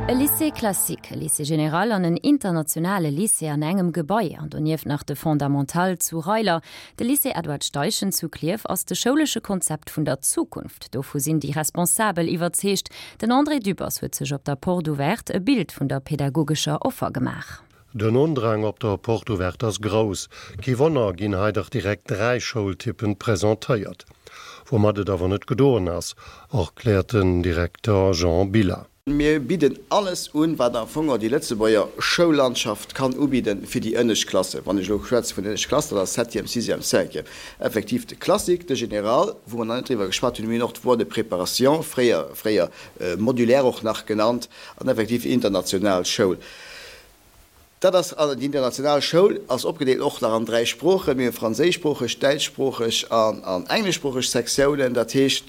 E Lycée classique, e Lycée général an en internationale Lycée an engem Gebai, an donieft nach de Fondamental zu Reiler. De Lycée Edward Steichen zu Klierf ass de schoulesche Konzept vun der Zukunft. Dovu sinn déi Responsabel iwwerzeegt. Den André Dübbers huet sech op der Porte Ouverte e Bild vun der pedagogescher Offer gemaach. Den Undrang op der Porte Ouverte ass grouss. Kee Wonner, ginn hei dach direkt 3 Schoultypen presentéiert. Woumat et awer net gedoen ass, erkläert den Direkter Jean Billa. Mir bidden alles un, wat am Fong och déi Lëtzebuerger Schoullandschaft kann ubidden fir déi ënnescht Klassen. Wann ech elo schwätze vun ënnescht Klassen, dat ass Septième, Sixième, Cinquième. Effektiv de Classique, de Général, wou mer nach net driwwer geschwat hunn, mir hunn och d'Voie de préparation, fréier, fréier modulaire och nach genannt, an effektiv international Schoul. Dat ass, also déi international Schoul ass opgedeelt och nach an 3 Sproochen. Mir hu franséischsproocheg, däitschsproocheg an engleschsproocheg Sektiounen. Dat heescht,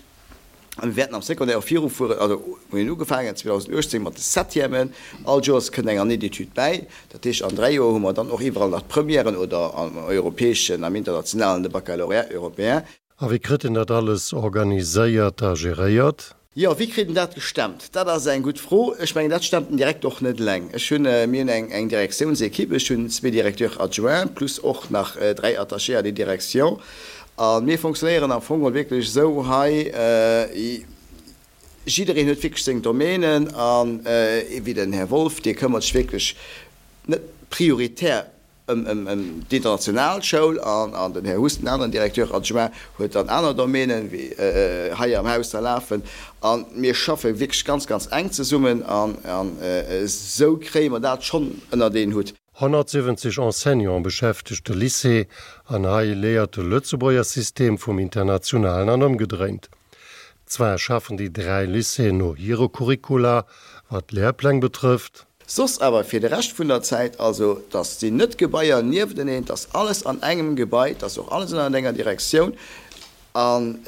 a mir wäerten am Secondaire och virufueren, also mir hunn ugefaangen 2018 mat de Septièmen, all Joers kënnt eng Année d'études bäi. Dat heescht, an 3 Joer hu mer dann och iwwerall nach d'Premièren oder am europäeschen, am internationalen de Baccalauréat européen. A wéi kritt en dat alles organiséiert a geréiert? Jo, wéi kritt en dat gestemmt? Dat ass eng gutt Fro. Ech mengen, dat stemmt den Direkter och net eleng. Ech hunn, mir hunn eng, eng Direktiounsequipe. Ech hunn zwee Directeurs adjoints plus och nach dräi Attachés à des directions. A mir fonctionnéieren am Fong geholl wierklech esou hei, jiddereen huet wierklech seng Domänen an, wéi den Här Wolff, dee këmmert sech wierklech net prioritär Ëm d'international Schoul an den Här Huss, den aneren Directeur adjoint, huet dann aner Domänen, wéi hei am Haus da lafen. A mir schaffe wierklech ganz, ganz enk zesummen an esou kréie mer dat schonn ënnert een Hutt. 170 Enseignante beschäftegt de Lycée an hei léiert de Lëtzebuerger System vum internationalen an ëmgedréint. Zwar schaffen déi 3 Lycéeën no hire Curricula, wat d'Lehrpläng betrëfft. Soss awer fir de Rescht vun der Zäit, also dass sinn net Gebaier niefteneen, 't ass alles an engem Gebai, 't ass och alles ënnert enger Direktioun an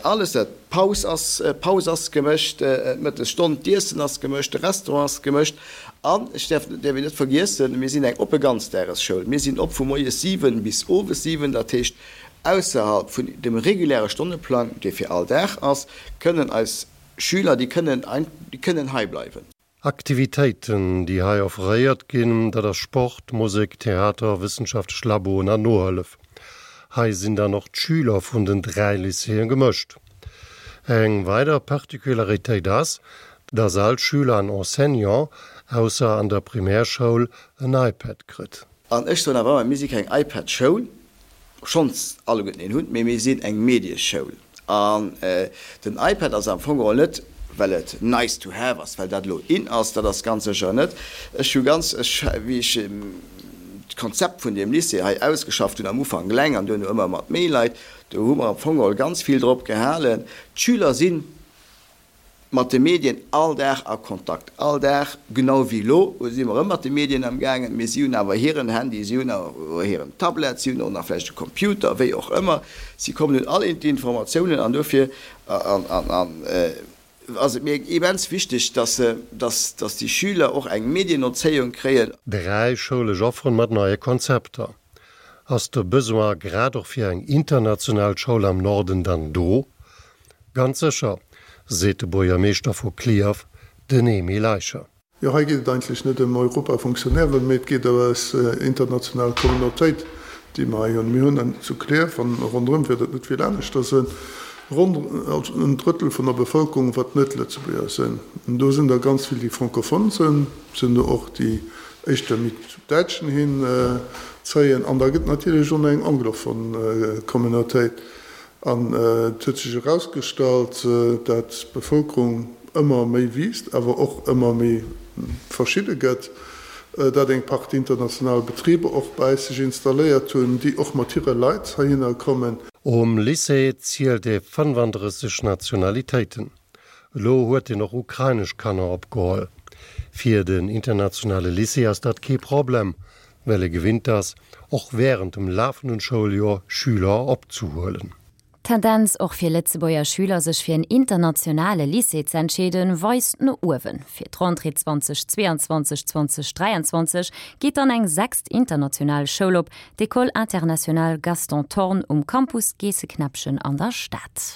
alles, dat d'Paus ass, d'Paus ass gemëscht, d'Mëttesstonn, d'Iessen ass gemëscht, de Restaurant ass gemëscht an ech däerf, däerf een net vergiessen, mir sinn eng oppe Ganzdagesschoul, mir sinn op vu moies 7 bis owes 7, dat heescht ausserhalb vun dem reguläre Stonneplang, dee fir all Dag ass, kënnen eis Schüler, déi kënnen, déi kënnen hei bleiwen. Aktivitéiten, déi hei offréiert ginn, dat ass Sport, Musek, Theater, wëssenschaftlech Laboen an Nohëllef. Hei sinn dann och d'Schüler vun den 3 Lycéeë gemëscht. Eng weider Particularitéit ass, dass all Schüler an Enseignant, ausser an der Primärschoul, en iPad kritt. An ech soen awer ëmmer, mir si keng iPad-Schoul, schonns alleguerten een hunn, mee mir sinn eng Medieschoul. An den iPad ass am Fong geholl net, well et nice to have ass, well dat elo in ass, dat ass ganz sécher net. Ech hu ganz, ech, wéi ech d'Konzept vun deem Lycée hei ausgeschafft hunn, am Ufank eleng an duerno ëmmer mat méi Leit, do hu mer am Fong geholl ganz vill drop gehalen, d'Schüler sinn, mat de Medien all Dag a Kontakt, all Dag, genau wéi elo si mer erëm mat de Medien am gaangen, mee si hunn awer hiren Handy, si hunn awer hiren Tablet, si hunn och nach vläicht e Computer, wéi och ëmmer, si kommen un all d'Informatiounen an dofir ass et mir immens wichteg, dass dass déi Schüler och eng Medienerzéiung kréien. Dräi schoulesch Offeren mat neie Konzepter. Ass de Besoin grad och fir eng international Schoul am Norden dann do? Ganz sécher, seet de Buergermeeschter vu Clierf, den Emile Eicher. Jo, hei geet et eigentlech net ëm Europafonctionnairen, mee et geet ëm eis international Communautéit, déi mer hei hunn. Mir hunn zu Clierf, an ronderëm wäert et net vill aneschter sinn, ronn en Drëttel vun der Bevëlkerung, wat net Lëtzebuerger sinn. An do sinn der ganz vill, déi francophone sinn, et sinn der och, déi éischter méi zum Däitschen hin zéien. An da gëtt et natierlech och nach eng anglophone Communautéit. An et huet sech erausgestallt, dat d'Bevëlkerung ëmmer méi wiisst, awer och ëmmer méi verschidde gëtt, dat eng Partie international Betriber och bei eis sech installéiert hunn, déi och mat hire Leit heihinner kommen. Um Lycée zielt ee 35 Nationalitéiten. Elo huet en och ukrainesch Kanner opgeholl. Fir den internationale Lycée ass dat kee Problem, well e gewinnt ass, och wärend dem lafenden Schouljoer Schüler opzehuelen. D'Tendenz och fir Lëtzebuerger Schüler sech fir en internationale Lycée ze entscheeden, weist no uewen. Fir d'Rentrée 2022, 2023 geet dann eng sechst international Schoul op, d'École internationale Gaston Thorn um Campus Geesseknäppchen an der Stad.